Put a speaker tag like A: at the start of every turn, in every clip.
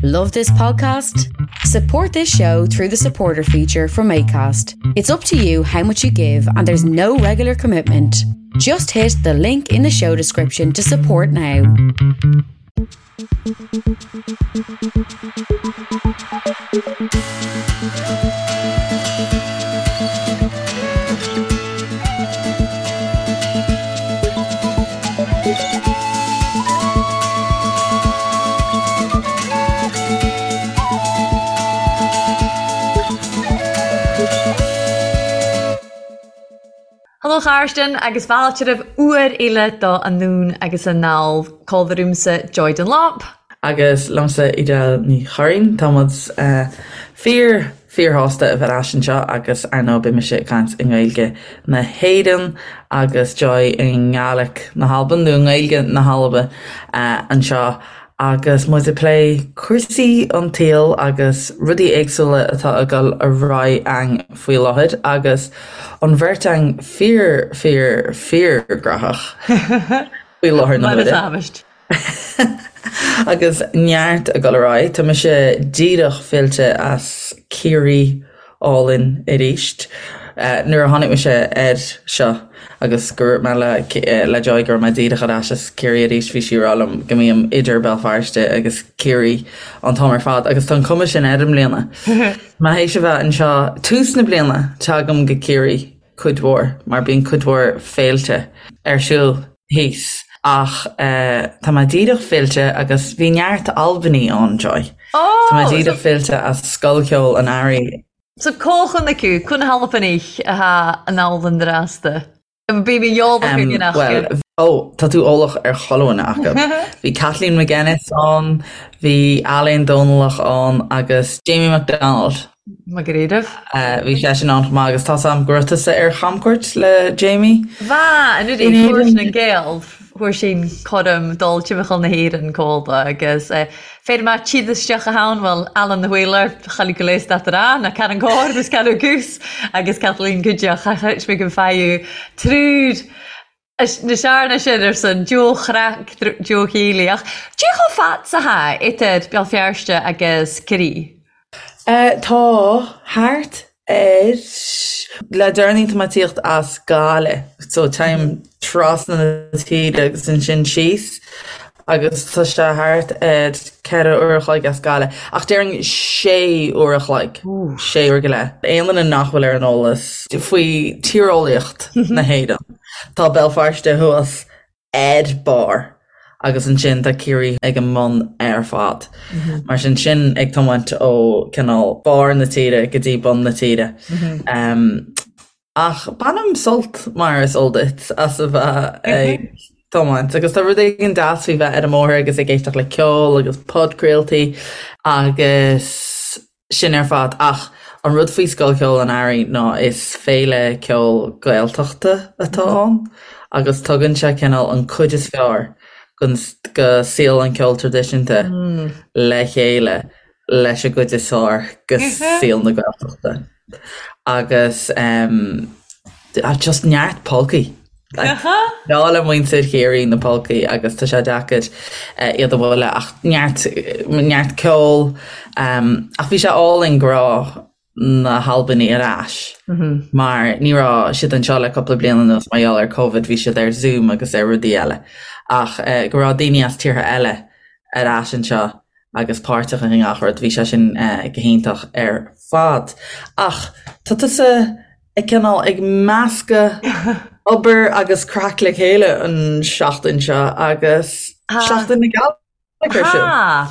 A: Love this podcast? Support this show through the supporter feature from ACAST. It's up to you how much you give, and there's no regular commitment. Just hit the link in the show description to support now.
B: Hello Charstan agus fáilte roimh uair eile do Anonn agus Anall. Comhla riumsa Joy Dunlop.
C: Agus liomsa Edel Ní Churraoin. Tá muid fíor fíorshásta a bheith ar ais anseo agus ar ndóigh beidh mise ag caint i nGaeilge na hÉireann agus Joy i nGàidhlig na hAlban nó i nGaeilge na hAlban anseo agus muid ag plé cúrsaí an tsaoil agus rudaí éagsúla atá ag dul ar aghaidh a'ainn faoi láthair agus an bheirt a'ainn fíor fíor fíor gnóthach faoi láthair na huaire. Agus neart ag dul ar aghaidh. Tá mise díreach fillte as Ciarraí álainn arís. Nuair a tháinig mise air seo agus go raibh mé le le Joy go raibh mé díreach ar ais as Ciarraí arís bhí sí ag rá liom go mbím idir Béal Feirste agus Ciarraí an t-am ar fad agus tá an cuma sin air i mbliana. Mé théis a bheith anseo tús na bliana teagaim go Ciarraí cuid mhór, mar bíonn cuid mhór féilte ar siúl thíos. Ach tá mé díreach fillte agus bhí neart Albanaigh ann, Joy. Tá mé díreach fillte as Scoil Cheoil an Earraigh.
B: So có chun acu, cun hAlbanaich atá in Albain drasta. Bí mé eolach ar duine acu.
C: Bhuel, ó, tá tú eolach ar chuile dhuine acu. Bhí Kathleen McGuinness ann, bhí Ailéin Dòmhnallach ann agus Jamie MacDonald.
B: Mac
C: Gairbh. Bhí seisean ann chomh maith agus tá's a'm go raibh tusa ar chamcuairt le Jamie.
B: Bha, anuraidh, fuair sin an Gael, fuair sin coram dul timcheall na hÉireann còmhla agus féir ma tchíd isteach a ann, bhuel, Alan the Whaler, chailleadh go léas dat a na Karen Gore agus Karen Goose agus Kathleen Cuideach, chait mé go faigheadh triúr na searna sin ar son Joe Chraic, Joe Healy, ach dé chomh fad 's atá idir Béal Feirste agus Ciarraí?
C: Tá thart ar. Le deireanaí tá mé ag tíocht as Gaillimh so téim trasna na tíre agus ansin síos agus tá sé thart ar 4 uair a chloig as Gaillimh ach déarfainn 6 uair a chloig, 6 uair go leith. Aon duine nach bhfuil ar an eolas faoi tíreolaíocht na hÉireann, tá Béal Feirste thuas ar barr agus ansin tá Ciarraí ag an mbun ar fad. Mar sin, sin ag tiomáint ó cineál barr na tíre go dtí bun na tíre. Ach bainim sult, mar is eol duit, as a bheith ag tiomáint agus tá rud éigin deas faoi bheith ar an mbóthar agus ag éisteacht le ceol agus podchraoltaí agus sin ar fad. Ach an rud faoi Scoil Cheoil an Earraigh ná is féile ceoil Gaeltachta atá ann agus tugann sé cineál an cuid is fearr go saol an cheoil traidisiúnta le chéile leis an gcuid is fearr go saol na Gaeltachta. Agus just neart polcaí. Breá le muintir Chiarraí na polcaí agus tá sé deacair iad a bhualadh ach neart neart ceoil. Ach bhí sé álainn go raibh na hAlbanaigh ar ais mar ní raibh siad anseo le cúpla bliain anuas mar gheall ar Covid, bhí siad ar Zoom agus ar rudaí eile. Ach go raibh daoine as tíortha eile ar ais anseo agus páirteach i ngach rud, bhí sé sin go hiontach ar fad. Ach tá tusa ag cineál ag meascadh obair agus craic le chéile an seachtain seo agus Seachtain na Gàidhlig ar siúl.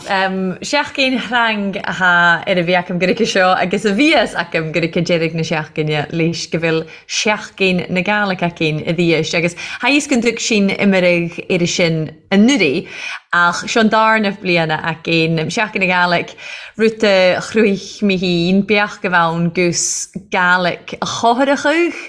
B: Tá. Seachdain thrang athá air a bhith agam go seo agus a bhíos agam go deiridh na seachdaine leis go bhfuil Seachdain na Gàidhlig againn a bhíos agus tha fhios gun dtug sinn imirigh air sin anuraidh ach seo an darna bliana againn. Seachdain na Gàidhlig, rud a chruthaigh mé féin, beadh go bheann gus Gàidhlig a chothrachadh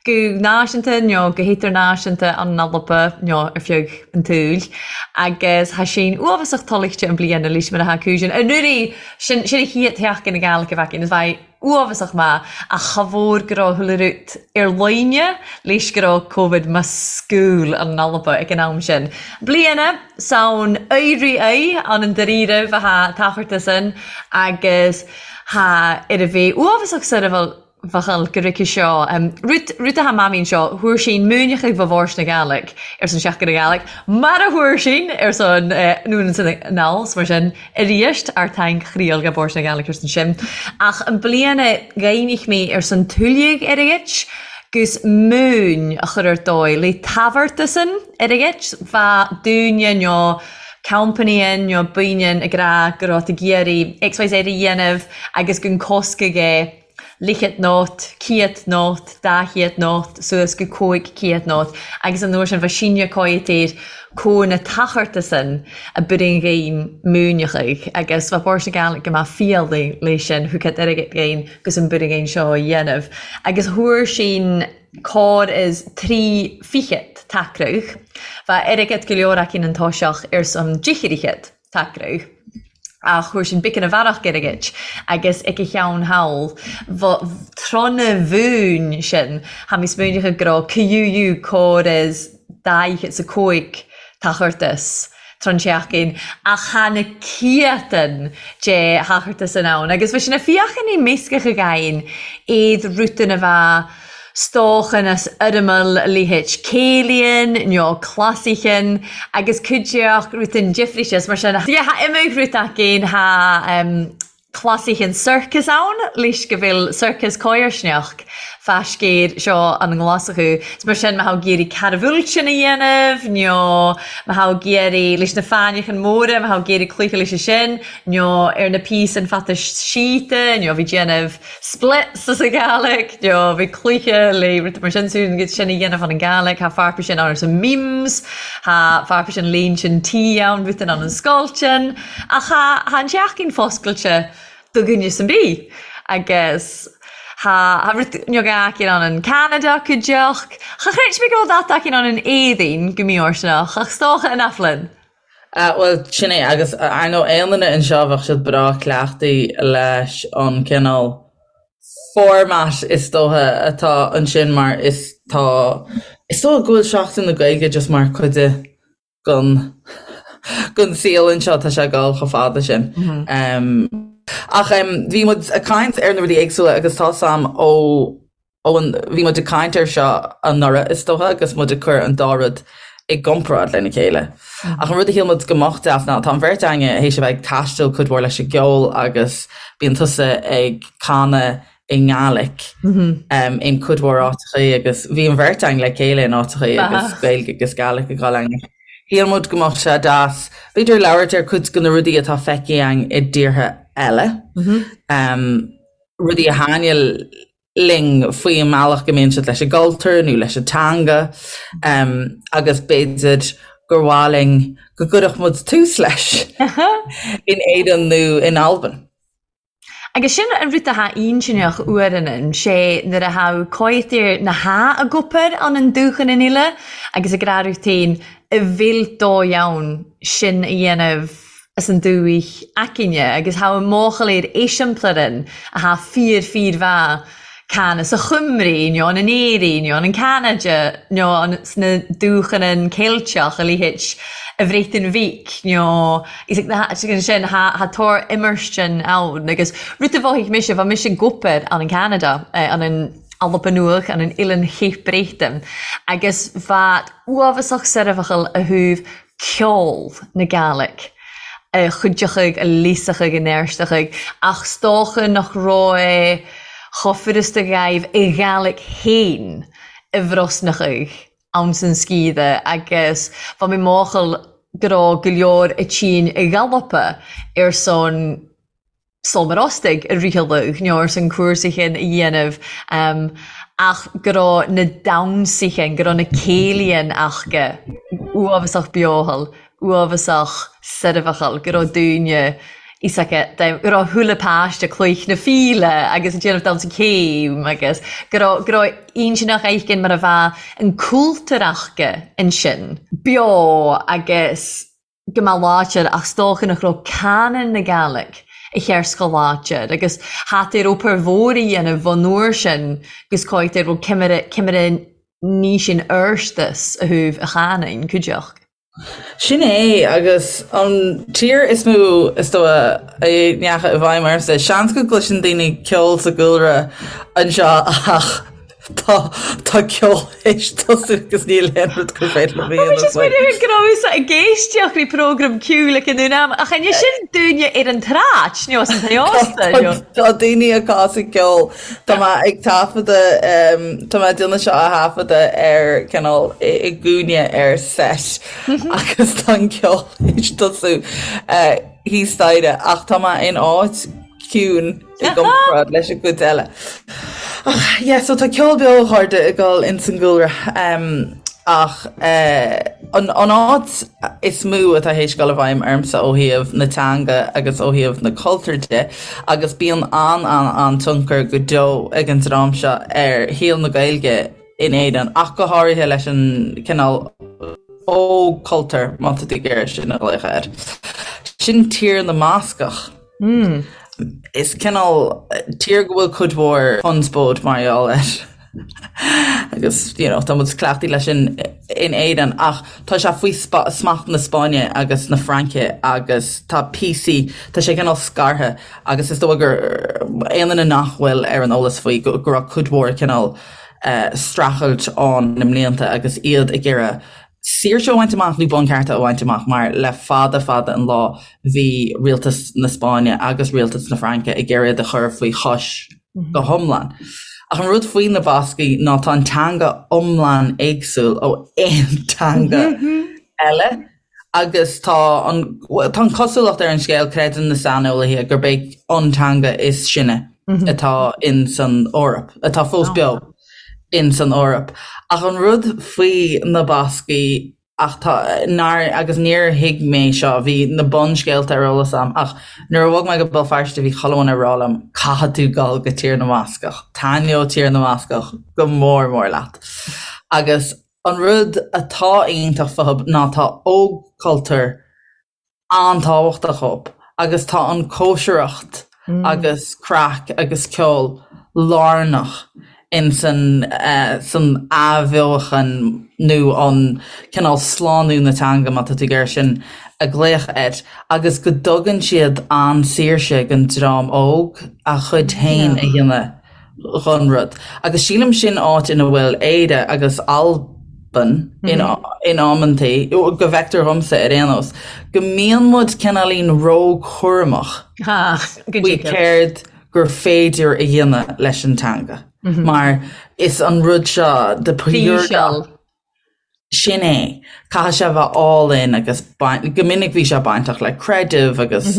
B: go náisiúnta nó go hidirnáisiúnta an Alba nó ar feadh an tsaoil agus tha sinn uabhasach toilchte an bliana leis mar a tha cúiseann. Anuraidh, sin sin a chéad Sheachdain na Gàidhlig a bheith againn is bheidh. Uabhasach maith, ach cha mhór go raibh chuile rud ar líne leis go raibh Covid ma scúl ann in Alba ag an am sin. Bliana 's ann éirí é ann an dáiríribh a tha tacharta san agus tha ar a bheith uabhasach soirbheachal go rice seo. Rud rud a tha mamaí anseo, thuar sinn múineachadh bha Bhòrd na Gàidhlig ar son Seachtain na Gàidhlig, mar a thuar sinn ar son anonn 's anall 's mar sin arís ár taing chriail ga Bòrd na Gàidhlig ar son sin. Ach an bliana ghaibhnich mé ar son tuilleadh airgid 'gus múin a chur ar dóigh le tabharta san. Airgid, bha dúinne nó company nó baoineann ag rá go raibh tú ag iarraidh XYZ a dhéanamh agus gun cosc aige lichead nót, ciad nót, dá chiad nót, suas go 500 nót agus an uair sin bha sinne cóighte air comh na tacharta san a b'in ghainn múineachaidh agus bha Bòrd na Gàidhlig go maith fialaigh leis sin thucad airgead ghainn gus an b'in ghainn seo a dhéanamh agus thuar sinn Cor is tri fichead tacradh. Bha airgead go leor aicinn an toiseach ar son dichirichead tacradh, ach thuar sinn biceann a bhearach airgid agus ag a cheann thall bha trona mhúin sin tha mi smaoineachadh go raibh QU cor is daichead 's a cúig tachartas. tron tseachtain, ach tha na ciatan de thachartas in ann, agus bha sin a fiachan i meascach a ghainn iad rutan a bha stóchan as fhoirmeal leithéid céilíonn nó clasaichean agus cuideachd rutan difríte is mar sin. Yeah, tha imeadh rud againn, tha Clasaichean sorcas ann leis go bhfuil sorcas cóirsneach fá scéir seo an nGlaschú. 'S mar sin má thá ag iarraidh carbhúiltean a dhéanamh nó má thá ag iarraidh leis na fáinneachan móra, má thá ag iarraidh cluiche leis sin nó ar na píosain fata síte nó bhí déanamh splits as an Ghàidhlig nó bhí cluiche le rud mar sin sin sin a dhéanamh an Ghàidhlig. Thá fearpa sin ann ar son memes, thá fearpa sin léinn sin tí ann, rud ann an scoiltean. Ach tha an teachín foscailte do dhuine 's an bith agus tha tha rud beag aicinn ann in Ceanada cuideachd. Cha chreid mé go bhfuil dat aicinn ann in Éirinn go mífhóirsteanach, ach 's dócha in Aiflinn.
C: Bhuel, sin é, agus ar ndóigh aon duine anseo bheadh siad breá cleachtaí leis an cineál format is dócha atá ansin mar is tá, is dócha go bhfuil Seachtain na Gaeilge just mar cuid de gon gon saol anseo, tá sé ag dul chomh fada sin. Ach bhí muid ag caint ar na rudaí éagsúla agus tá 's a'm ó ó an bhí muid ag caint air seo anuraidh is dócha agus muid ag cur an dá rud i gcomparáid lena chéile. Ach an rud a shíl muid go mbeadh deas ná tá an bheirt againne théis a bheith ag taisteal cuid mhór leis an gceol agus bíonn tusa ag canadh i nGàidhlig in cuid mhór áiteachaí agus bhí an bheirt againn le chéile in áiteachaí agus Gaeilge agus Gàidhlig ag dul againn. Shíl muid go mbeadh sé deas b'fhéidir labhairt ar cuid de na rudaí atá feicthe againn i dtíortha eile, rudaí a thaitnigh linn faoi an mbealach go mbíonn siad leis an gcultúr nó leis an teanga agus b'fhéidir gur mhaith linn go gcuirfeadh muid tús leis in Éirinn nó in Albain.
B: Agus sin an rud atá intinneach uaireannan, sé nuair a tha coimhthír na h-a gcopair ann an dúchan in uile agus ag rá féin a bhfuil dóigh ann sin a dhéanamh as an dúich aicinne agus tha an mbuachaill ar eiseamplair a tha fíor fíor mhaith can sa Chymru nó an in Éirinn nó an in Ceanada nó an sna dúchanan Ceilteach a leithéid a Bhréatain Bhig nó is ag na sin tha tor imearstean ann agus rud a mhothaigh mise bha mise ag obair ann in Ceanada an in Alba Nuadh an in Oilean Chape Breton agus bha uabhasach soirbheachal a thaobh ceol na Gàidhlig, a chuideochaidh, a leasachaidh, a neartachaidh, ach 's dócha nach raibh chomh furasta dhaibh a Ghàidhlig fhéin a bhrosnachaidh ann san sciath agus bha mi mòchal go raibh go leor a tìonn a ghalpa ar son Sómar Ostaig a ritheadh nó ar son cúrsaichin a dhéanamh ach go raibh na damhsaichin, go raibh na céilíonn aca uabhasach beothal, uabhasach soirbheachal, go raibh daoine is aca, go raibh chuile páiste cloich na fíle agus ag déanamh damhsa céim agus go raibh, go raibh intinneach éigin mar a bheadh an cultúr aca ansin beo agus go mba láidir ach 's dócha nach raibh canadh na Gàidhlig. A chears go láidir agus tha air obair mhór a dhéanamh an uair sin gus cáit ar bhfuil cimire cimire ní sin fheirstas a thabh a chanainn, cuideachd.
C: Sin é, agus an tír is mó is dóigh a ndeachaigh i bhfeidhm ormsa. Seans go gcloiseann daoine ceol sa gcúlra anseo ach tá tá ceol théis tosú agus níl aon rud gur féidir liom a
B: dhéanamh faoi. Go rabhas ag éisteacht le prógram ceoil ag an uair am ach an é sin dúinne ar an tsráid nó as an t-ósta nó?
C: Tá daoine ag casadh ceoil. Tá mé ag taifeadadh, tá mé ag déanamh seo a thaifeadadh ar cineál i gcúinne ar set agus tá an ceol théis tosú thíos staighre ach tá mé in áit ciúin i gcomparáid leis an gcuid eile. Ach yeah, so tá ceol beo a chairde ag dul ins an gcúlra. Ach an áit is mó atá théis dul i bhfeidhm ormsa ó thaobh na teanga agus ó thaobh na cultúr de, agus bíonn an-an-an-tionchar go deo ag an dream seo ar shaol na Gaeilge in Éirinn, ach go háirithe leis an cineál óg-chultúr, má tá tú ag iarraidh sin a ghlaoch air. Sin Tír na mBascach. Is cineál tír go bhfuil cuid mhór conspóid mar gheall air agus you know tá muid cleachtaithe leis sin in Éirinn ach tá sé faoi smacht na Spáinne agus na Fraince agus tá píosaí, tá sé cineál scartha agus is dóigh gur aon duine nach bhfuil ar an eolas faoi go raibh cuid mhór cineál streachailt ann na mblianta agus iad ag iarraidh saoirse a bhaint amach nó bunchearta a bhaint amach mar le fada fada an lá bhí rialtas na Spáinne agus rialtas na Fraince ag iarraidh iad a chur faoi chois go hiomlán. Ach an rud faoi na Bascaigh ná tá an teanga iomlán éagsúil ó aon teanga eile agus tá an tá an cosúlacht ar an scéal, creideann na saineolaithe, gurb é an teanga is sine atá in san Eoraip, atá fós beo. in san Eoraip. Ach an rud faoi na Bascaigh ach tá, nár, agus níor thuig mé seo, bhí na bunscéalta ar eolas a'm ach nuair a bhog mé go Béal Feirste bhí chuile dhuine ag rá liom caithfidh tú dul go Tír na mBascach, taitneoidh Tír na mBascach go mór mór leat. Agus an rud atá iontach fúthu ná tá ógchultúr an-tábhachtach dhób agus tá an cóisireacht agus craic agus ceol lárnach in san san athbheochan nó an cineál slánú na teanga, má tá tú ag iarraidh sin a ghlaoch air, agus go dtugann siad an-saoirse don dream óg a chuid féin a dhéanamh. dhon rud. Agus sílim sin áit ina bhfuil Éire agus Albain in in amantaí, go bhfeictear dhomsa ar aon nós, go mbíonn muid cineáilín róchúramach faoi céard gur féidir a dhéanamh leis an teanga. Mar is an rud seo de pure Sin é. Caithfidh sé a bheith álainn agus go minic bhí sé bainteach le creideamh agus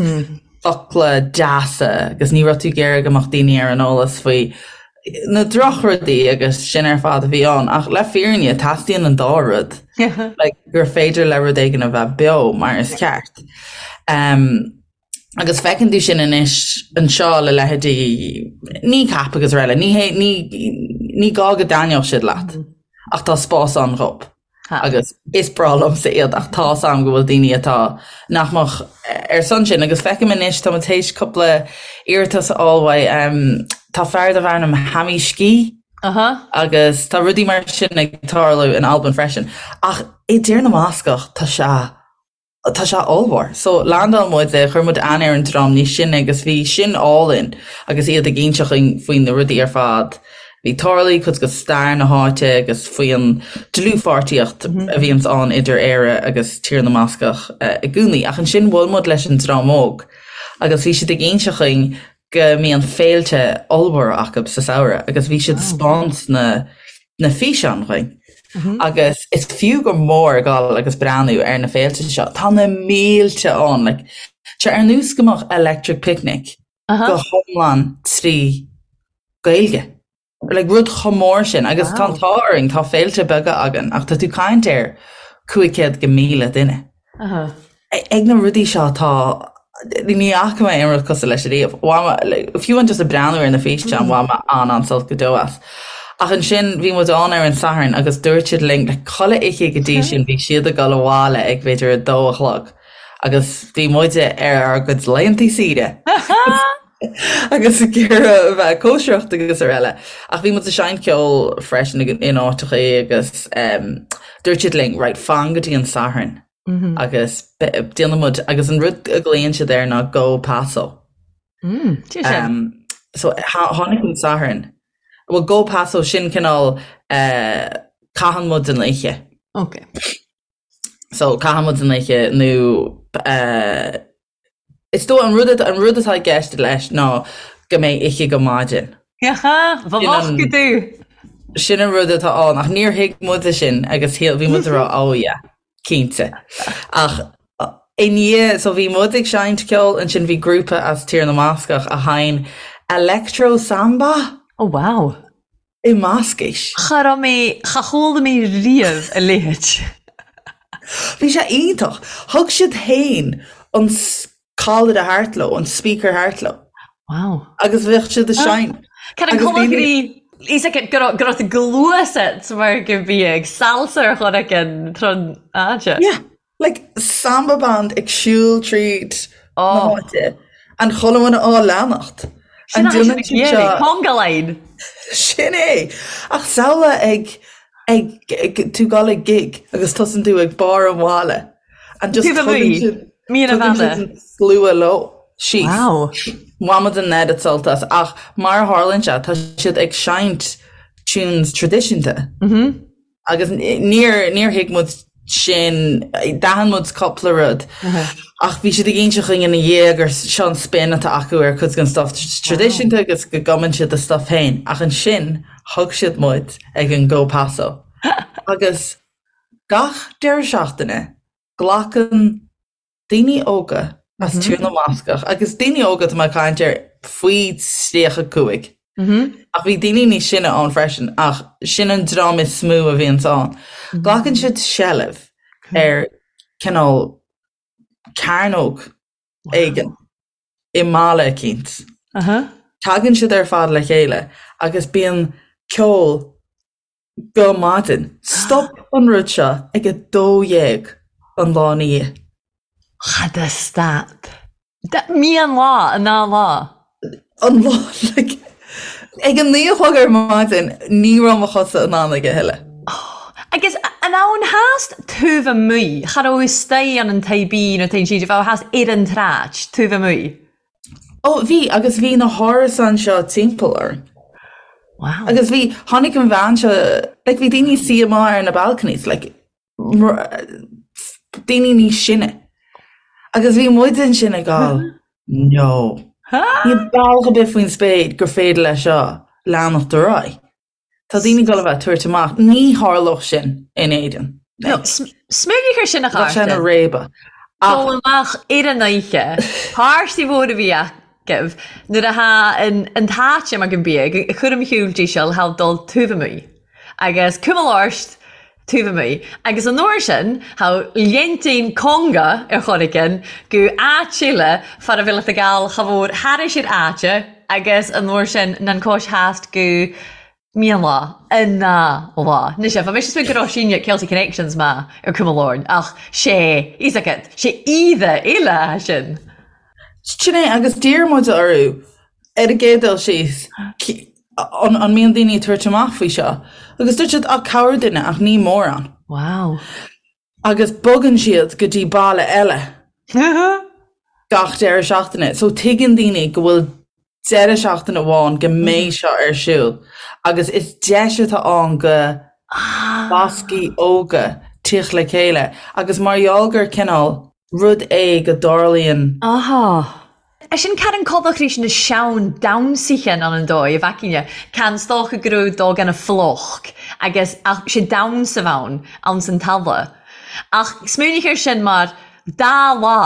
C: focla deasa agus ní raibh tú ag iarraidh go mbeadh daoine ar an eolas faoi na drochrudaí agus sin ar fad a bhí ann. Ach le fírinne, teastaíonn an dá rud like, gur féidir le rud éigin a bheith beo mar is ceart. Um, Agus feiceann tú sin anois anseo le leithéidí Kneecap agus araile. Ní hé, ní, ní gá go dtaitneodh siad leat, ach tá spás ann dhób. Agus is breá liomsa iad ach tá 's a'm go bhfuil daoine atá nach mbeadh ar son sin. Agus feicim anois, tá muid théis cúpla iarratas a fháil uaidh, tá fear darb ainm Hamish Ski agus tá rudaí mar sin ag tarlú in Albain freisin. Ach i dTír na mBascach tá sé Tá sé ollmhór. So, landáil muid, chuir muid aithne ar an dream níos sine agus bhí sin álainn agus iad ag inseacht dhuinn faoi na rudaí ar fad a bhí tarlaithe, cuid de stair na háite agus faoi an dlúthpháirtíocht a bhíonns ann idir Éire agus Tír na mBascach i gcónaí. Ach ansin bhuail muid leis an dream óg agus bhí siad ag inseacht dhuinn go mbíonn féilte ollmhóra acu sa samhradh agus bhí siad ag 'spáint na na físeáin dhuinn. Agus is fiú go mór dul agus breathnú ar na féilte seo. Tá na mílte ann, like, tá ar nós go mbeadh Electric Picnic go hiomlán trí Gaeilge. Like, rud chomh mór sin agus tá an t-ádh orainn, tá féilte beaga againn ach tá tú ag caint ar 500 go 1,000 duine. Ag na rudaí seo tá, ní fhaca mé aon rud cosúil leis ariamh. Bhain mé, like, fiú amháin just ag breathnú ar na físeáin, bhain mé an-an-sult go deo as. Ach ansin bhí muid ann ar an Satharn agus dúirt siad linn, like, chuile oíche go dtí sin bhí siad ag dul abhaile ag b'fhéidir a dó a chlog. Agus bhí muide ar ár gcuid laethanta saoire agus ag iarraidh a bheith ag cóisireacht agus araile. Ach bhí muid ag seinnt ceoil freisin in áiteachaí agus dúirt siad linn, right, fan go dtí an Satharn agus déanfaidh muid, agus an rud a ghlaonn siad air ná go paso. So tháinig an Satharn. Bhuel go paso sin cineál caitheann muid an oíche.
B: Ok.
C: So caitheann muid an oíche nó eh, is dóigh an rud an rud atá i gceist leis ná go mbeidh oíche go maidin.
B: Ba mhaith go dú.
C: Sin an rud atá ann ach níor thuig muide sin agus shíl bhí muid ag rá oh yeah, cinnte. Ach i ndiaidh so bhí muid ag seinnt ceoil ansin bhí grúpa as Tír na mBascach a sheinn electro samba.
B: Oh wow.
C: I mBascais.
B: Cha raibh mé, cha chuala mé riamh a leithéid.
C: Bhí sé iontach. Thug siad féin an callaire thart leo, an speaker thart leo.
B: Wow.
C: Agus bhíodh siad ag seinnt.
B: Cad an cuma go dtí fhios acu go raibh go raibh gluaiseacht mar go bhí ag salsa ar chor éigin tron áite.
C: Yeah. Like samba band ag siúl tríd na
B: Oh.
C: háite and chuile dhuine á leanacht.
B: Sin
C: And
B: é sin
C: déanann
B: ag
C: siad
B: iarraidh.
C: seo
B: Conga line.
C: Sin é! Ach samhlaigh ag ag ag tú dul ag gig agus tosaíonn tú ag barr an bhaile and just
B: Taobh
C: tugann
B: amuigh.
C: siad
B: Mír a
C: tugann siad
B: bheanna.
C: an slua leo síos.
B: Wow.
C: Bhain muid an oiread sult as ach mar a tharlaíonn sé tá siad ag seinnt tunes traidisiúnta. Agus níor, níor thuig muid sin, d'aithin muid cúpla rud ach bhí siad ag inse chugainn ina dhiaidh gur seo an spin atá acu ar cuid den stuff traidisiúnta agus go gcumann siad a stuff féin ach ansin thug siad muid ag an Go Paso agus gach deireadh seachtaine glacann daoine óga as Tír na mBascach, agus daoine óga tá mé ag caint ar faoi 35, ach bhí daoine níos sine ann freisin, ach sin an dream is mó a bhíonns ann. Glacann siad seilbh ar cineál cearnóg éigin i mbaile eicínt. Tagann siad ar fad le chéile agus bíonn ceol go maidin. Stop an rud seo ag 12 an lá ina dhiaidh.
B: Cha da stad. Meadhon lá, an dá lá.
C: An lá, like, ag a naoi a chlog ar maidin ní raibh mo chosa in ann aige a thuilleadh.
B: Agus an ann theas taobh amuigh, cha raibh istoigh ann an tae bí nó tae sí, bheadh theas ar an tsráid taobh amuigh.
C: Ó, bhí, agus bhí na hárasáin seo timpeall orainn.
B: Wow.
C: Agus bhí, tháinig an bhean seo, like, bhí daoine ag suí amuigh ar na balconies, like, daoine níos sine. Agus bhí muid ansin ag gabháil, no. Níl bealach ar bith faoin spéir gur féidir leis seo leanacht ar aghaidh. Tá daoine ag dul a bheith ag tabhairt amach. Ní tharlódh sin in Éirinn.
B: No, smaoinigh ar sin a
C: Bheadh sé ina
B: Chártain.
C: réabadh.
B: Dul amach ar an oíche, páirtí mhór a bhí agaibh nuair atá an t-áit mar go mbíodh, ag cur im shiúil díseal, thall dul taobh amuigh. Agus cuma labhairt taobh amuigh. Agus an uair sin, thá leintín conga ar chor éigin go áit eile fara bhfuil a gabháil cha mhór thairis ar áite agus an uair sin nan cois theas go mian lá, an ná lá. Anois, bha mise go raibh síne Celtic Connections maith ar cuma lorn ach sé, fhios agat, sé oíche eile sin.
C: Sin é, agus d'iarr muid orthu ar an gcéad dul síos, an an mbíonn daoine ag tabhairt amach faoi seo? Agus dúirt siad, ah, corrdhuine, ach ní mórán.
B: Wow.
C: Agus bogann siad go dtí baile eile gach deireadh seachtaine. So tuigeann daoine go bhfuil deireadh seachtaine amháin go mbeidh seo ar siúl agus is deis atá ann go Bascaigh óga tíocht le chéile agus mar gheall gur cineál rud é go dtarlaíonn
B: Aha. Sin can an codach rís na seann damhsaithe ann an dóigh a bhfeicinn can 's dócha go raibh dó gan a phluc agus ach sé damhsa bhann ann san talamh. Ach smaoinigh air sin mar dá lá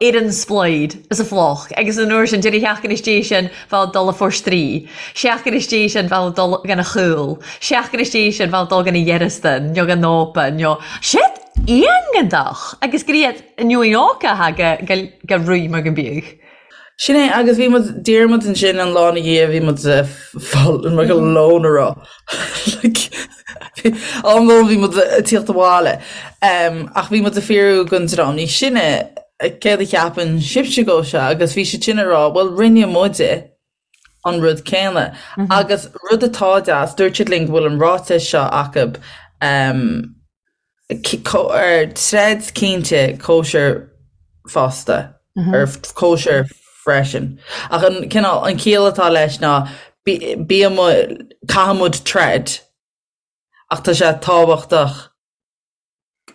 B: ar an sploid is a phluc agus an uair sin deireadh sheachtain istigh sin bheadh dul a forstraí, seachtain istigh sin bheadh dul gan a chúl, seachtain istigh sin bheadh dul gan a dhearastan nó gan ópa nó shit iontach agus go iad inniu in óca go go ruí mar go mbíodh.
C: Sin é, agus bhí muid, d'iarr muid ansin an lá ina dhiaidh, bhí muid fáil mar go lón a rá. Like, am lóin bhí muid ag tíocht abhaile. Ach bhí muid ag fiafraí den dream níos sine. céard a cheapann sibhse dhó seo agus bhí siad sin ag rá bhuel rinne muide an rud céanna. Agus rud atá deas, dúirt siad linn go bhfuil an ráiteas seo acu ar troid cinnte cóisir fosta, ar cóisir freisin. Ach an cineál, an chiall atá leis ná bíonn muid, caithfidh muid troid ach tá sé tábhachtach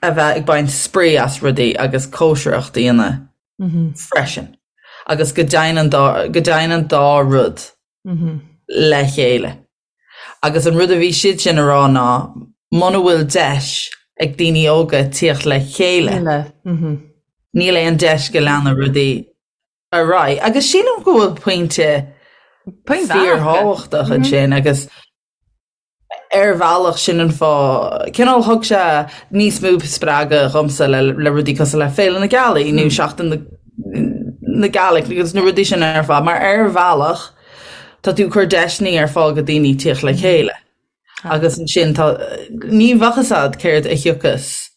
C: a bheith ag baint spraoi as rudaí agus cóisireacht a dhéanamh freisin agus go dtéann an dá, go dtéann an dá rud le chéile. Agus an rud a bhí siad sin a rá ná muna bhfuil deis ag daoine óga tíocht le chéile, níl aon deis go leanfaidh rudaí ar aghaidh. Agus sílim go bhfuil pointe fíorthábhachtach ansin agus ar bhealach sin an fáth, cineál thug sé níos mó spreagadh dhomsa le le rudaí cosúil le Féile na Gealaí nó Seachtain na na Gàidhlig agus na rudaí sin ar fad mar ar bhealach tá tú ag cur deiseanna ar fáil go daoine tíocht le chéile. Agus ansin tá ní bheadh fhios a'd céard a thiocfas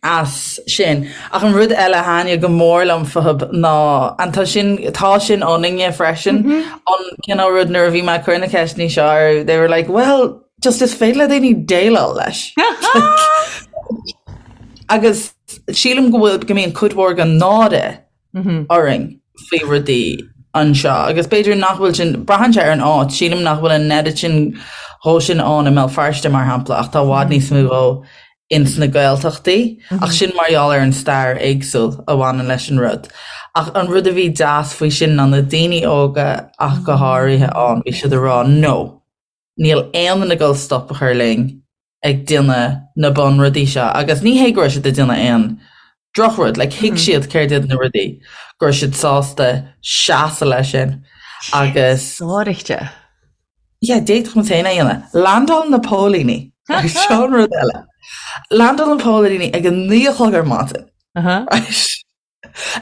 C: as sin. Ach an rud eile a thaitnigh go mór liom fúthub ná, and tá sin, tá sin ionainne freisin, an cineál rud nuair a bhí mé ag cur na ceisteanna seo orthu, they were like, well, just is féidir le daoine déileáil leis. Agus sílim go bhfuil, go mbíonn cuid mhór den náire orainn faoi rudaí anseo agus b'fhéidir nach bhfuil sin, braitheann sé ar an áit, sílim nach bhfuil an oiread sin dhó sin ann i mBéal Feirste mar shampla ach tá i bhfad níos mó dhó ins na Gaeltachtaí ach sin mar gheall ar an stair éagsúil a bhaineann leis an rud. Ach an rud a bhí deas faoi sin ná na daoine óga ach go háirithe ann, bhí siad ag rá no, níl aon duine ag dul stop a chur linn ag déanamh na bunrudaí seo agus ní hé go raibh siad ag déanamh aon drochrud, like thuig siad céard iad na rudaí, go raibh siad sásta seasamh leis sin agus.
B: Sáraíte.
C: Yeah, d'fhéadfadh muid féin é a dhéanamh. Landáil na póilíní, seo an rud eile. Landáil na póilíní ag a 9 a chlog ar maidin. Right.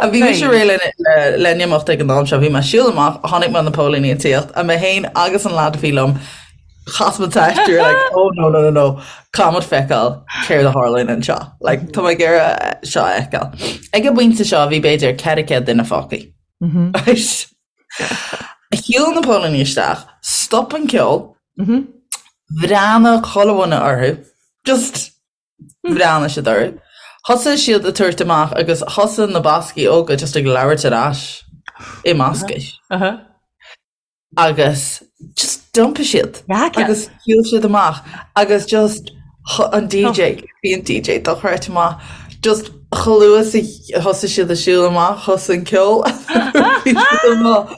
C: A bhí mise réidh le le n-imeacht ag an am seo, bhí mé ag siúl amach, chonaic mé na póilíní ag tíocht, a mé féin agus an lad a bhí liom, chas muid teist, we were like, oh no no no no, caithfidh muid feiceáil céard a tharlaíonn anseo, like tá mé ag iarraidh seo a fheiceáil. Ag an bpointe seo bhí b'fhéidir 400 duine fágtha. Right. Shiúil na póilíní isteach, stop an ceol, bhreathnaigh chuile dhuine orthu, just Bhreathnaigh siad orthu. Thosaigh siad ag tabhairt amach agus thosaigh na Bascaigh óga just ag labhairt ar ais i mBascais. Agus just d'iompaigh siad agus shiúil siad amach agus just an DJ, bhí an DJ dochreidte maith, just chomh luath is a thosaigh siad ag siúl amach, thosaigh an ceol bhí siad amach.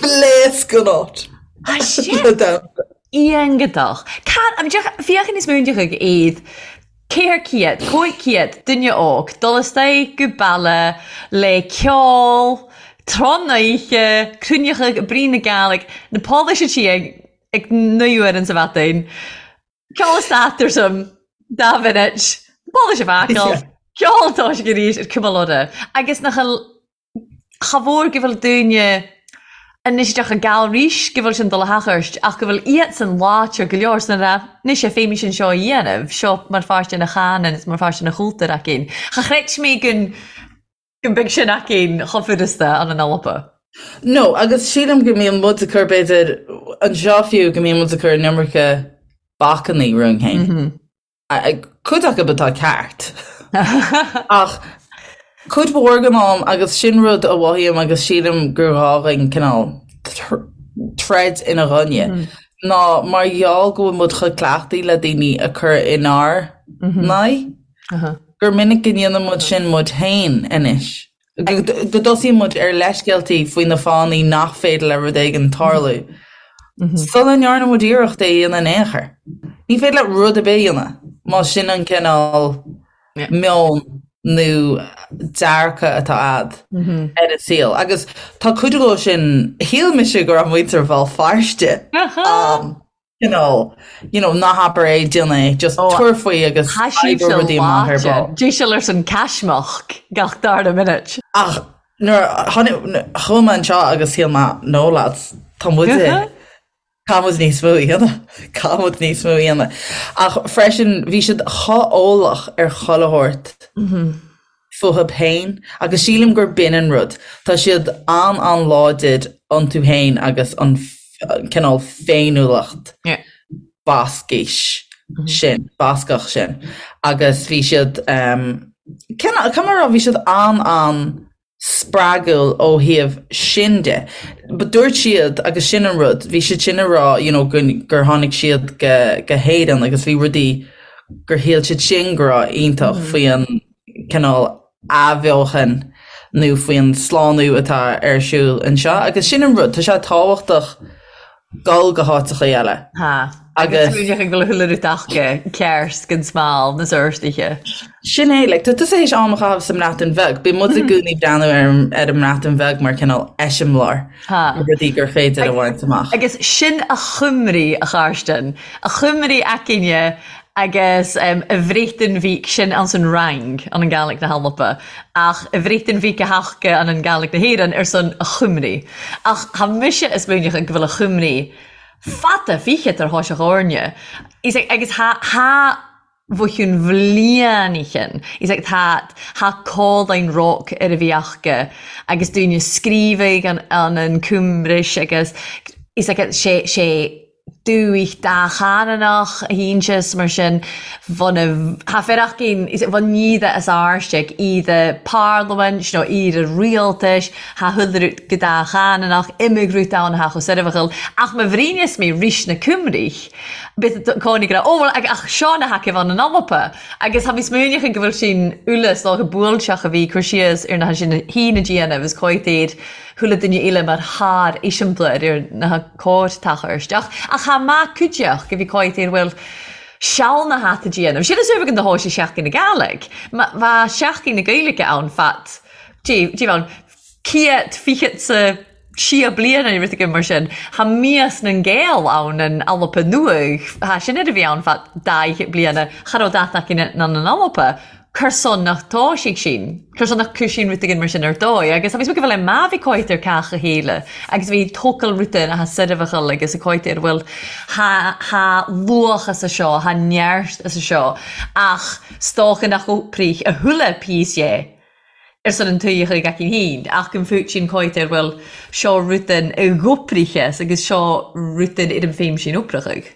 C: Phléasc an áit.
B: Le damhsa. Iontach. Féachann níos mó ag iad 400, 500 duine óg dul isteach go baile le ceol, tráth na oíche, cruinneachadh, brí na Gàidhlig, na pólaí sí ag ag 9 uair sa mhaidin. Ceol stát ar some dá mhinit, pólaí sé bhacáil, ceol toisc arís ar cuma lora. Agus nach Cha mhór go bhfuil daoine anois isteach i gceal rís go bhfuil sin dul a theacht ach go bhfuil iadsan láidir go leor san rá anois é féimís an seo a dhéanamh, seo mar pháirt ina chanann is mar pháirt ina chultúr againn. Cha chreid mé go go mbeidh sin againn chomh furasta an an Alba.
C: No, agus sílim go mbíonn muid ag cur b'fhéidir anseo fiú go mbíonn muid ag cur an iomarca bacannaí romhainn féin. Cuid acu atá ceart. Ach cuid mhór den am, agus sin rud a mhothaím agus sílim gur ghá dhúinn cineál troid ina gcoinne, ná mar gheall go bhfuil muid chomh cleachtaithe le daoine a cur inár n-aghaidh, gur minic go ndéanann muid sin muid féin anois. Go dtosaíonn muid ar leithscéaltaí faoi na fáthanna nach féidir le rud éigin tarlú sula ndearna muid iarracht é a dhéanamh in aon chor. Ní féidir leat rud ar bith a dhéanamh más sin an cineál meon nó dearcadh atá a'd ar an saol. Agus tá cuid dhó sin, shíl mise go raibh muintir Bhéal Feirste ann. you know, you know, ná habair é, déan é, just tabhair faoi agus
B: Tá sibhse rudaí amach ar ball. Dé ar son caismeach gach dara minute.
C: Ach nuair a tháinig, chuaigh mé anseo agus shíl mé, no lads, tá muid, caithfidh muid níos mó a dhéanamh, caithfidh muid níos mó a dhéanamh. Ach freisin, bhí siad chomh eolach ar chuile shórt. fúthu féin agus sílim gur b'in an rud. Tá siad an-an-láidir iontu féin agus an cineál féiniúlacht Bascais sin, Bascach sin. Agus bhí siad, cineál, caithfidh mé a rá, bhí siad an-an spreagúil ó thaobh sin de. But dúirt siad, agus sin an rud, bhí siad sin ag rá you know gur tháinig siad go go hÉirinn agus bhí rudaí gur shíl siad sin go raibh iontach faoi an cineál athbheochan nó faoi an slánú atá ar siúl anseo. Agus sin an rud, tá sé tábhachtach dul go háiteachaí eile.
B: Tá. Agus smaoineach ag dul chuile rud aca ceart gan smál na sórt-ithe.
C: Sin é, like, tá tusa théis am a chaitheamh sa mBreatain Bheag. Bíonn muid i gcónaí ag breathnú ar ar an mBreatain Bheag mar cineál eiseamláir de rudaí gur féidir a bhaint amach.
B: Agus sin a Chymru, a Charstin. A Chymru againne agus a Bhreatain Bhig sin anns an Fhraing an an Gàidhlig na hAlba ach a Bhreatain Bhig a thaca an an Gàidhlig na hÉireann ar son a Chymru. Ach tha mise a' smaoineachadh go bhfuil a Chymru fada fichead ar thoiseach Áirne. Is agus tha tha bhuicheann bhliain Is ag tá tha codláin roc ar a bhí aca agus daoine scríobhaidh an an an Cymruis agus is ag sé sé dúich dáchananach a hínseas mar sin bhun tha fir aicinn is bhun iad as áirseach iad parlaimint nó iad rialtais tha chuile rud go dáchananach imigh rud ann tha chomh soirbheachal ach ma bhríneas mé rís na Cymrich bith cónaí go raibh ó bhuel ach seo na haicibh ann an Alba agus tha mi smaoineachadh go bhfuil sin uile 's dócha buailteach a bhí cur síos ar na sin hí na déanamh is cóitéir chuile duine eile mar thar eiseamláir ar na cóir-tachair isteach. Ach tha maith cuideach go bhí cóitéir bhfuil seal na hata déanamh. Sin is uaimh an do thóis i Seachtain na Gàidhlig. Bha Seachtain na Gaeilge ann fad dé dé ann ciat fichead sa sia bliana nó rud éigin mar sin. Tha mias nan Gael ann an Alba Nuadh. Tha sin ar a bhí ann fad daigh bliana. Cha raibh dat acu ná an Alba. Cur son nach dtoisigh sin, cur son nach cuir sin rud éigin mar sin ar dóigh agus bhí go bhfuil é má bhí cóitir cách a chéile agus bhí tócail rud in atá soirbheachal agus a cóitir bhfuil tha tha luach as a seo, tha neart as a seo ach stoca nach oprich a thuile píos dhe ar son an tuighe chuig aicinn féin ach go bhfuil sin cóitir bhfuil seo rud in i gcopricheas agus seo rud in ar an féim sin oprachadh.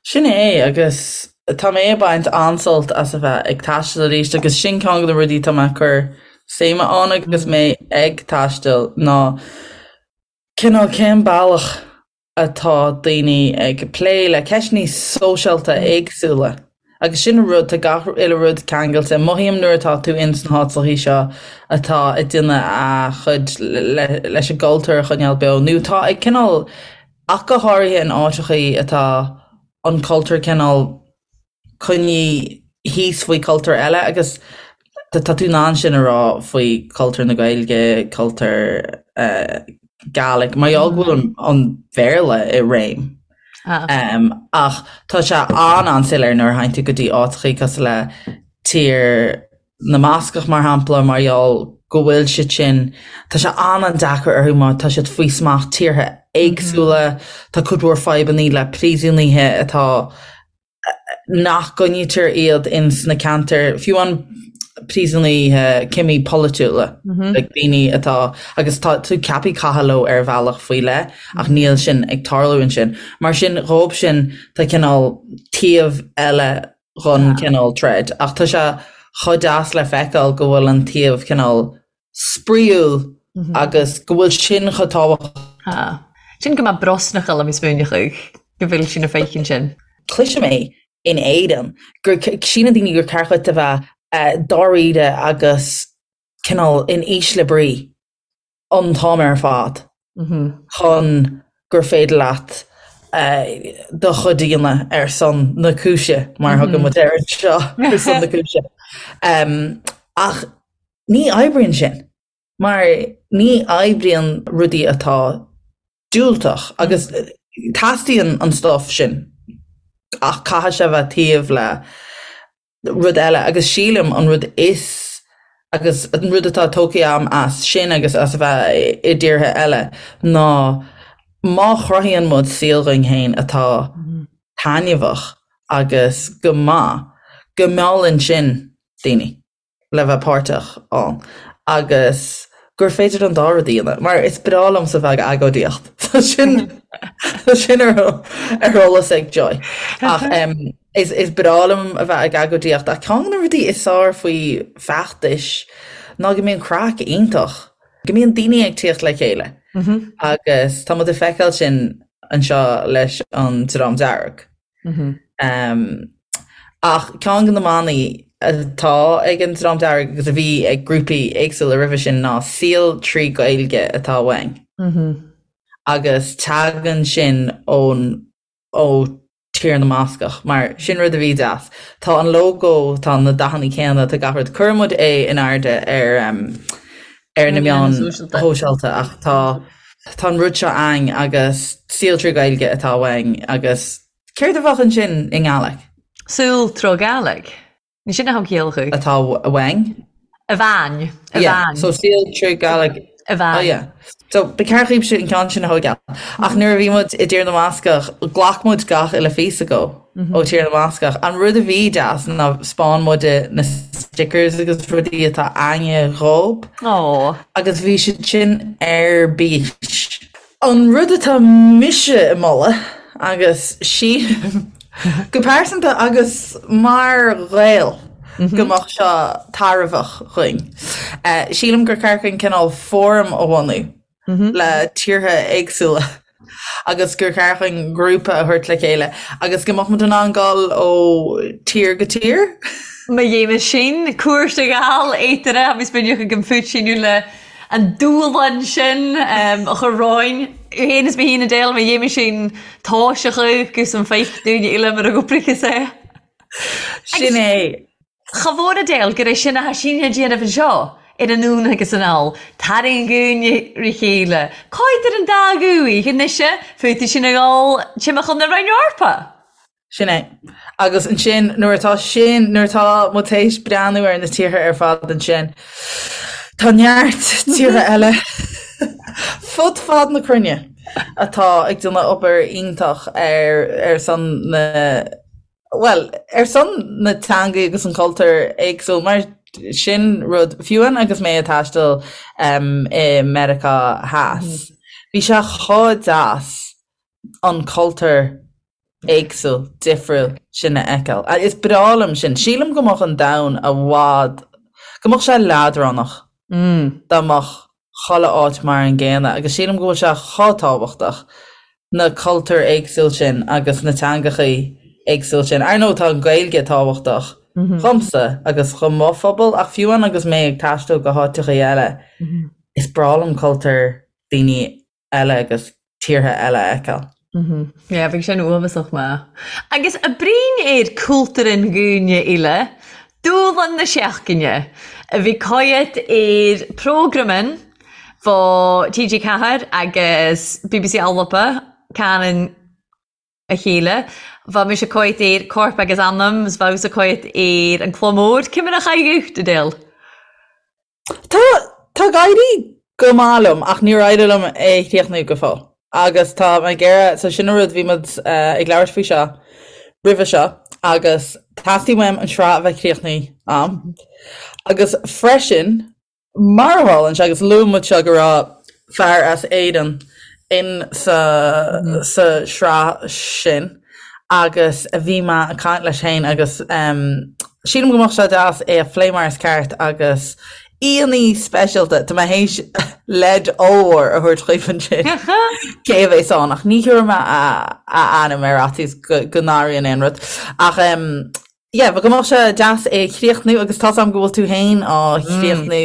C: Sin é, agus tá mé ag baint an-sult as a bheith ag taisteal arís agus sin ceann de na rudaí atá mé ag cur suime ann agus mé ag taisteal ná cineál cén bealach atá daoine ag plé le ceisteanna sóisialta éagsúla agus sin an rud, tá gach uile rud ceangailte. Mothaím nuair atá tú ins na háiteachaí seo atá ag déanamh a chuid leis an gcultúr a choinneáil beo nó tá ag cineál Ach go háirithe in áiteachaí atá an cultúr cineál coinnithe thíos faoi cultúr eile agus tá tú in ann sin a rá faoi cultúr na Gaeilge, cultúr Gaelic, mar gheall go bhfuil an Bhéarla i réim. Ach tá sé an-an-soiléir nuair a théann tú go dtí áiteachaí cosúil le tír na mBascach, mar shampla, mar gheall go bhfuil siad sin, tá sé an-an-deacair orthu mar tá siad faoi smacht tíortha éagsúla, tá cuid mhór fadhbannaí le príosúnaithe atá, nach gcoinnítear iad ins na ceantair, fiú an príosúnaithe, cimí polaitiúla, like daoine atá, agus tá tú ceaptha caitheamh leo ar bhealach faoi leith ach níl sin ag tarlú ansin. Mar sin, dhóibh sin, tá cineál taobh eile dhon cineál troid. Ach tá sé chomh deas le feiceáil go bhfuil an taobh cineál spraíúil agus go bhfuil sin chomh tábhachtach.
B: Tá. Sin go mbeadh brosnachal am smaoineachadh go bhfuil sin a féichinn sin.
C: Cloisim é in Éirinn gur síleann daoine gur ceart duit a bheith dáiríre agus cineál in ísle brí. an t-am ar fad chun gur féidir leat do chuid a dhéanamh ar son na cúise, mar a thugann muid air anseo, ar son na cúise. Ach ní oibríonn sin, mar ní oibríonn rudaí atá diúltach agus teastaíonn an stuif sin ach caithfidh sé a bheith taobh le rud eile agus sílim an rud is agus an rud atá tógtha agam as sin agus as a bheith i dtíortha eile ná má chruthaíonn muid saol dhúinn féin atá taitneamhach agus go maith, go meallann sin daoine. le bheith páirteach ann agus gur féidir an dá rud a dhéanamh, mar is breá liomsa bheith ag agóidíocht. Tá sin tá sin ar ar eolas ag Joy. Ach um, is, is breá liom a bheith ag agóidíocht ach ceann de na rudaí is fearr faoi feachtais ná go mbíonn craic iontach, go mbíonn daoine ag tíocht le chéile mm -hmm. agus tá muid ag feiceáil sin anseo leis an Dream Dearg. Ach ceann de na manaí atá ag an Dream Dearg agus a bhí ag grúpaí éagsúla roimhe sin ná saol trí Ghaeilge atá uainn. Agus tagann sin ón ó Tír na mBascach, mar sin rud a bhí deas. Tá an lógó, tá na dathanna céanna, tá gach rud. Cuireann muid é in airde ar ar na meáin shóisialta ach tá tá an rud seo againn agus saol trí Ghaeilge atá uainn agus céard a bheadh ansin i nGàidhlig?
B: Saol tro Gàidhlig. Ní sin a thug ciall
C: chu. Atá uainn.
B: A bhean. A
C: bhean. So saol trí Gàidhlig.
B: A bhean.
C: Oh yeah. So ba cheart dhaoibhse an ceann sin a thógáil. Ach nuair a bhí muid i dTír na mBascach, ghlac muid gach uile phíosa dhó ó Tír na mBascach. An rud a bhí deas ná 'spáin muid na stickers agus rudaí atá againne dhób.
B: Aww.
C: Agus bhí siad sin ar bís. An rud atá mise ag moladh, agus sílim go pearsanta agus mar Ghael go mbeadh seo tairbheach dhuinn, sílim gur ceart dhuinn cineál fóram a bhunú le tíortha éagsúla agus gur cheart dhuinn grúpa a thabhairt le chéile agus go mbeadh muid in ann dul ó tír go tír.
B: Má dhéanamh sin, cuairt a ghabháil éataire agus b'fhéidir chuig an phúitsíniú le an dúshlán sin a chur romhainn. Féin is mé féin a deil má dhéanamh sin toiseach agus an feic dúinne uile mar a gcuprachas é.
C: Sin é.
B: Cha mhór a deil gur é sin atá sinn a déanamh anseo ar anonn agus anall, tarraing dhúinn ri chéile. Cáid ar an dá dhúigh anois fúthu sin a dhul timcheall na Roinn Eorpa?
C: Sin é. Agus ansin, nuair atá sin, nuair atá muid théis breathnú ar na tíortha ar fad ansin, tá neart tíortha eile fud fad na cruinne atá ag déanamh obair iontach ar ar son na, bhuel, ar son na teangaí agus an cultúr éagsúil, mar sin rud, fiú amháin agus mé ag taisteal i Meiriceá Theas, bhí sé chomh deas an cultúr éagsúil, difriúil sin a fheiceáil. Is breá liom sin. Sílim go mbeadh an domhan i bhfad, go mbeadh sé leadránach dá mbeadh chuile áit mar an gcéanna agus sílim go bhfuil sé chomh tábhachtach na cultúir éagsúil sin agus na teangachaí éagsúil sin. Ar ndóigh tá an Ghaeilge tábhachtach dhomsa agus do mo phobal ach fiú amháin agus mé ag taisteal go háiteachaí eile is breá liom cultúr daoine eile agus tíortha eile a fheiceáil.
B: Yeah, bheadh sin uafásach maith. Agus a brín ar cultúr an dhúine uile, dúshlán na seachtaine, a bhí coiat ar prógraman fá TG4 agus bbc Alba, Canon a chéile. Bha mise coiat ar Corp agus Anam, 's bha thusa coiat ar an Cló Mór. Ciamar a chaidh dhuit, Adele?
C: Tá, tá ag éirí go maith liom ach níor éirigh liom é a chríochnú go fóill. Agus tá mé ag iarraidh, so sin an rud, bhí muid ag labhairt faoi seo roimhe seo agus teastaíonn uaim an sraith a bheith críochnaithe a'm. Agus freisin, mar a tharlaíonn sé, agus luaigh muid seo go raibh fear as Éirinn in sa, sa sraith sin agus bhí mé ag caint leis féin agus sílim go mbeadh sé deas é a phlé mar is ceart agus aíonna speisialta, tá mé théis leid ollmhór a thabhairt dhaoibh ansin cé a bheas ann ach ní thabharfaidh mé a ainm ar fhaitíos go n-athraíonn aon rud. Ach yeah, go mbeadh sé deas é a chríochnú agus tá's agam go bhfuil tú féin á chríochnú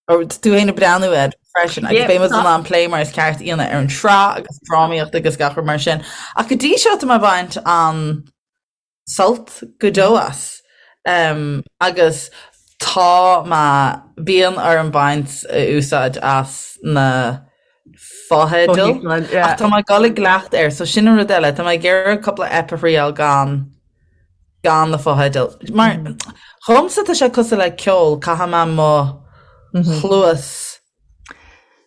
C: tú féin ag breathnú air freisin agus beidh muid in ann plé mar is ceart a dhéanamh ar an sraith agus drámaíocht agus gach rud mar sin. Ach go dtí seo tá mé ag baint an-sult go deo as. Um, agus tá mé bíonn orm baint úsáid as na fotheidil. Ach tá mé ag dul i gcleachtadh air, so sin an rud eile, tá mé ag iarraidh cúpla ep a thriail gan gan na fotheidil. Mar dhomsa tá sé cosúil le ceol, caithfidh mé mo chluas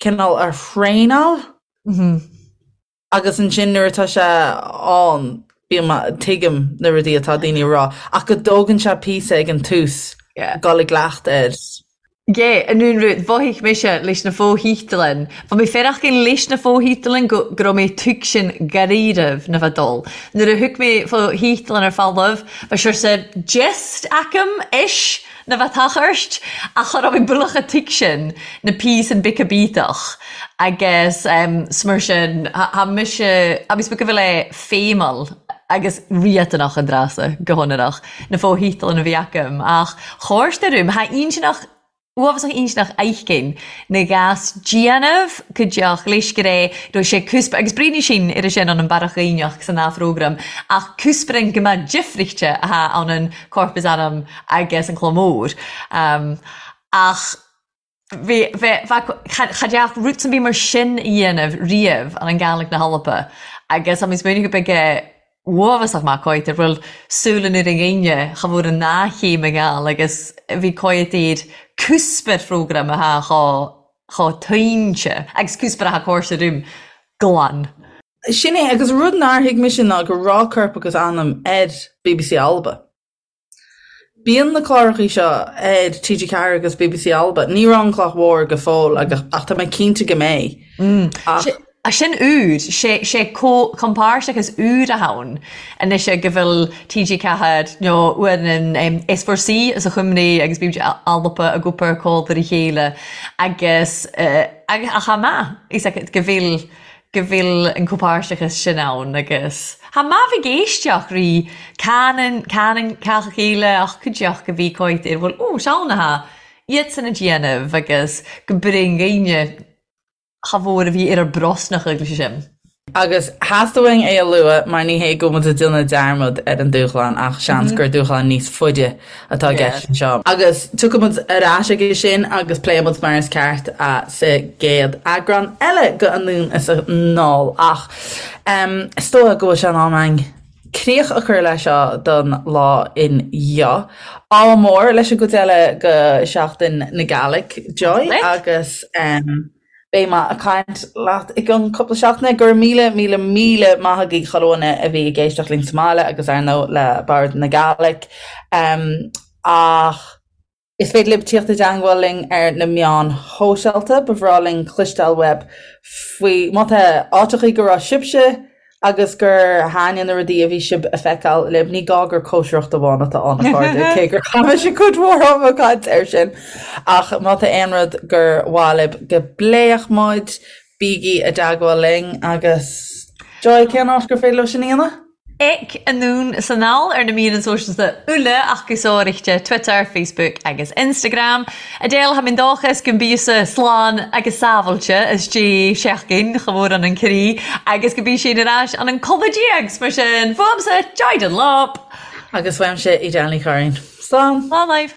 C: cineál a thraenáil agus ansin nuair atá sé ann bím tuigim na rudaí atá daoine a rá ach go dtógann sé píosa ag an tús. Dul i gcleachtadh air.
B: Yeah, an aon rud, mhothaigh mise leis na fo-thítealainn, bha mi faireachdainn leis na fo-thítealainn go go robh mé tuigsinn dhairíreamh na bheith dul. Nuair a thug mé fo-thítealainn ar falbh, bha siorsa gist agam, ish, na bheith tachairt, ach cha robh mé buileach a' tuigsinn na píosan bic a bíteach agus 's mar sin, tha mise, agus go bhfuil é feidhmeal agus riachtanach an dreasa, go hionannach. na fo-thítealainn a bhí agam, ach chóirste rúm, tha inntinneach, uabhasach inntinneach aithginn na gas déanamh cuideach leis go raibh raibh sé cúspa agus breathnaigh sinn ar sin ann an Barrach Gaibhneach san dá phrógram ach cúsparan go mbeadh difrichte athá ann an Corp is Anam agus an Cló Mór. Ach Bhí, bhí, bheadh, cha, cha dteach roots an bith mar sin a dhéanamh riamh an an Gàidhlig na hAlba agus tá mé smaoineamh go beag uafásach maith cóighte bhfuil súil an ar an dhaoine cha bhfuair an dá chéim i nGall agus bhí cóighte iad cúspar phrógram athá chomh, chomh tuinte agus cúspar athá cóirse rúm glan.
C: Sin é, agus rud nár thuig mise ná go raibh Corp agus Anam ar bbc Alba. Bíonn na clárachaí seo ar TG4 agus bbc Alba. Ní raibh An Cloch Mhór go fóill ach tá mé cinnte go mbeidh.
B: Ach. Sin úr, sé compáirteachas úr a ann anois go bhfuil TG4 nó uair an S4C as a Chuimhní agus bbc Alba ag obair comh ar a chéile agus ach chomh maith go bhfuil go bhfuil an comhpháirteachas sin ann agus tha maith bheith ag éisteacht rí canann canann cách a chéile ach cuideachta go bhí cóit ar bhfuil ó seann atá iadsan a déanamh agus go bring dhaoine cha mhór a bhí ar ár brosnach agus sin.
C: Agus theastaigh uainn é a lua mar ní hé go bhfuil muid ag déanamh dearmad ar an dúshlán ach seans gur dúshlán níos faide atá i gceist anseo. Agus tiocfaidh muid ar ais aige sin agus pléifidh muid mar is ceart sa gcéad eagrán eile de Anonn is Anall. Ach is dóigh go bhfuil sé in am againn críoch a chur leis seo don lá inniu. Ádh mór leis an gcuid eile de Sheachtain na Gàidhlig, Joy, agus. Beidh mé ag caint leat i gcionn cúpla seachtaine. Go raibh míle, míle, míle maith agaibh chuile dhuine a bhí ag éisteacht linn sa mbaile agus ar ndóigh le Bòrd na Gàidhlig. Ach is féidir libh tíocht i dteangmháil linn ar na meáin shóisialta. Ba bhreá linn cloisteáil uaibh faoi má tá áiteachaí go raibh sibhse agus gur thaitnigh na rudaí a bhí sibh a feiceáil libh. Ní gá gur cóisireacht amháin atá ann, a chairde, cé gur chaith mise cuid mhór ama ag caint air sin. Ach má tá aon rud gur mhaith libh go bpléifeadh muid, bígí i dteagmháil linn agus Joy, cén áit gur féidir leo sin a dhéanamh?
B: Ag Anonn 's Anall ar na meadhanan sòisealta uile ach gu sòraidhte Twitter, Facebook agus Instagram. Edel, Tha mi dòchas gun biosa slàn agus sàbhailte as dè seachdain cha mhór ann an crì agus gu bi sinn air ais ann an codladh déag, 's mar sin, fuamsa Joy Dunlop!
C: Agus uaimse Edel Ní Churraoin. Slán!
B: Slán libh!